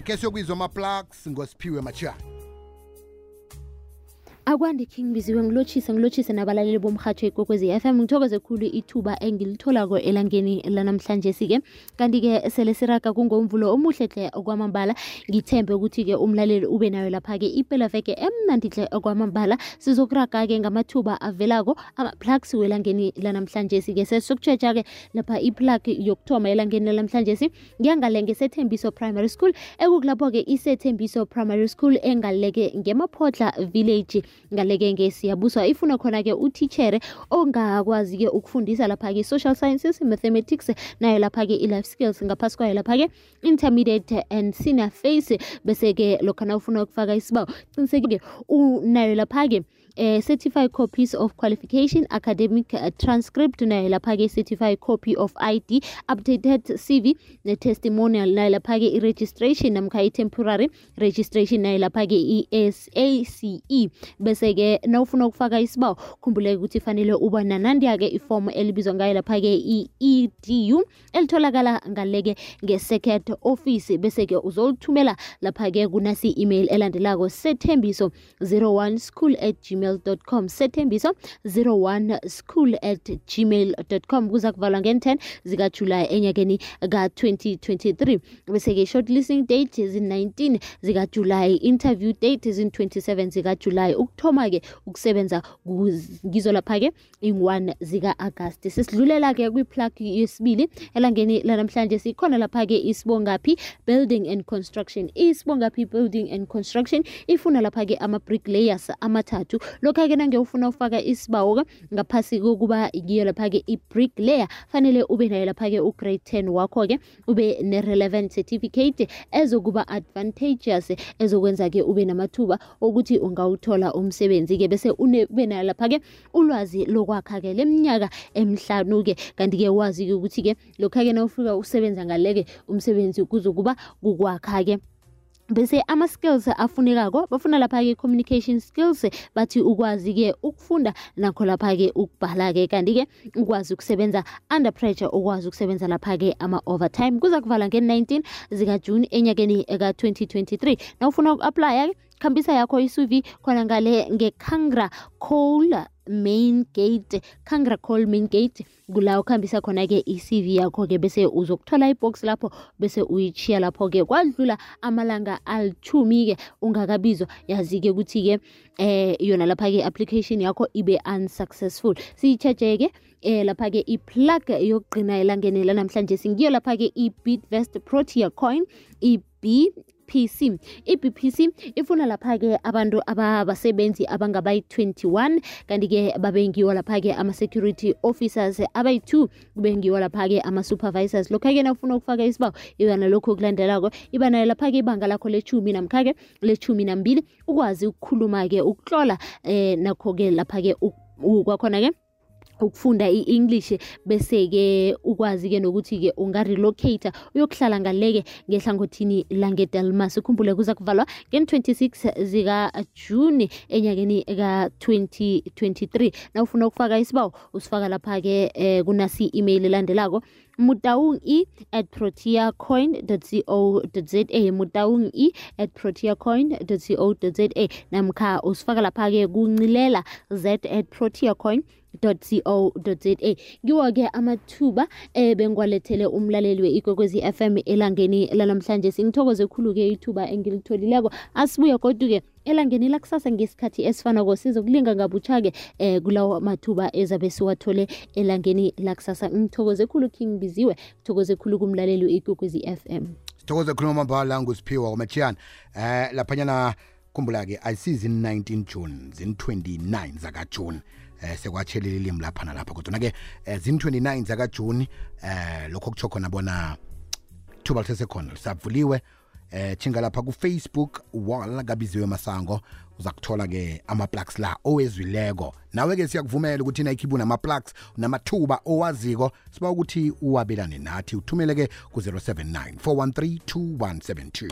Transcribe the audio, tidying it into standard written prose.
Akhe siyokwizwa ama-plugs ngosiphiwe Machiyana. Akwande King biziwe ngilotshise nabalaleli bomrhatsho ikwekwezi FM. Ngithokoze khulu ithuba engilitholako elangeni lanamhlanje sike. Kanti ke sele siraga kungomvulo omuhle hle okwamambala. Ngithembe ukuthi ke umlaleli ube nayo lapha ke iphela veke emnandi hle okwamambala. Sizokuraga ke ngamathuba avelako ama-plugs welangeni lanamhlanje sike. Sesokutshetsha ke lapha i-plug yokuthoma elangeni lanamhlanje si. Ngiyangalenge seThembiso Primary School ekukulapho ke iseThembiso Primary School engaleke ngemaphotla village. Ngaleke ngesiyabuswa ifuna khona ke utitchere ongakwazi ke ukufundisa lapha ke social sciences, mathematics nayo lapha ke life skills ngaphasi kwayo lapha ke intermediate and senior phase bese ke lokho na ufuna ukufaka isibawo qiniseke unayo lapha ke certified copies of qualification, academic transcript nayo lapha ke certified copy of ID, updated CV ne testimonial nayo lapha ke i-registration namkha i-temporary registration nayo lapha ke i-SACE. Bese ke nawufuna ukufaka isibawo khumbuleke ukuthi fanele uba nanandiya ke iform elibizwa ngayo lapha ke i-EDU elitholakala ngaleke nge-second office. Bese ke uzolithumela lapha ke kunasi email elandelako sethembiso01school@gmail.com sethembiso01school@gmail.com. kuza kuvalwa nge-10 zikaJulayi enyakeni ka-2023. Bese ke shortlisting date zin-19 zikaJulayi, interview date zin-27 zikaJulayi, ukuthoma ke ukusebenza ngizo lapha ke in-1 zika-Agasti. Sesidlulela ke kwi-plug yesibili elangeni lanamhlanje sikhona lapha ke isibongaphi building and construction. Isibongaphi building and construction ifuna lapha ke ama-bricklayers amathathu. Lokho ke nange ufuna ufaka isibawo ngaphasi kokuba ngiyo lapha ke i-bricklayer fanele ube nayo lapha ke u-grade 10 wakho ke ube ne-relevant certificate ezokuba advantageous ezokwenza ke ube namathuba ukuthi ungawuthola umsebenzi ke bese ube nayo lapha ke ulwazi lokwakha ke leminyaka emihlanu ke. Kanti ke wazi ke ukuthi ke lokho ke nawufika usebenza ngaleke umsebenzi kuzokuba kukwakha ke. Bese ama-skills afunekako bafuna lapha ke communication skills, bathi ukwazi ke ukufunda nakho lapha ke ukubhala ke, kanti ke ukwazi ukusebenza under pressure, ukwazi ukusebenza lapha ke ama-overtime. kuza kuvala nge-19 zikaJune enyakeni ka-2023. Nawufuna uku-apply khambisa yakho i-CV khona ngale ngeKangra Coal Main Gate, Kangra Coal Main Gate kula ukhambisa khona ke i-CV yakho ke bese uzokuthola ibox lapho bese uyichiya lapho ke kwadlula amalanga al-10 ke ungakabizwa yazi ke ukuthi ke yona lapha ke application yakho ibe unsuccessful. Siyicheche ke lapha ke i-plug yokugcina elangeni lanamhlanje singiyo lapha ke i-Bitvest Protea Coin BPC. I-BPC ifuna lapha ke abantu abasebenzi abangabayi-21 kanti ke babengiwa lapha ke ama-security officers abayi-2 kubengiwa lapha ke ama-supervisors. Lokho ke nawufuna ukufaka isibawo ibana lokho kulandelako ibana lapha ke ibanga lakho le-10 namkha ke le-12 ukwazi ukukhuluma ke ukutlola nakho ke lapha ke kwakhona ke ukufunda i-English bese ke ukwazi ke nokuthi ke ungarelocate uyokuhlala ngaleke ngehlangothini langeDelmas. Ukhumbule kuza kuvalwa nge-26 zikaJune enyakeni ka-2023. Nawufuna ukufaka isibawo usifaka lapha ke kunasi email elandelako mutaungi@proteacoin.co.za mutaungi@proteacoin.co.za namkha usifaka lapha ke kuncilela z@proteacoin.co.za. Ngiwo ke amathuba bengwalethele umlaleli we-Ikwekwezi FM elangeni lanamhlanje. Singithokoze khulu ke ithuba engilitholileko. Asibuye kodwa ke elangeni lakusasa ngesikhathi esifanako sizokulinga ngabutsha ke kulawo mathuba ezabe siwathole elangeni lakusasa. Ngithokoze khulu King Biziwe, ngithokoze khulu kumlaleli we-Ikwekwezi FM. Sithokoze khulu mambala ngusiphiwa Machiyana. Laphanyana khumbula ke ayisizi 19 June zin-29 zakaJune. Sekwatshelile ilimi lapha nalapha kodwa ke zin-29 zakaJune lokho kutsho khona bona thuba lisesekhona lisavuliwe. Chinga lapha ku-Facebook wall kaBiziwe Masango uzakuthola ke ama-plugs la owezwileko. Nawe ke siyakuvumela ukuthi nayikhiphu nama-plugs namathuba owaziko siba ukuthi uwabelane nathi uthumele ke ku 079 413 2172.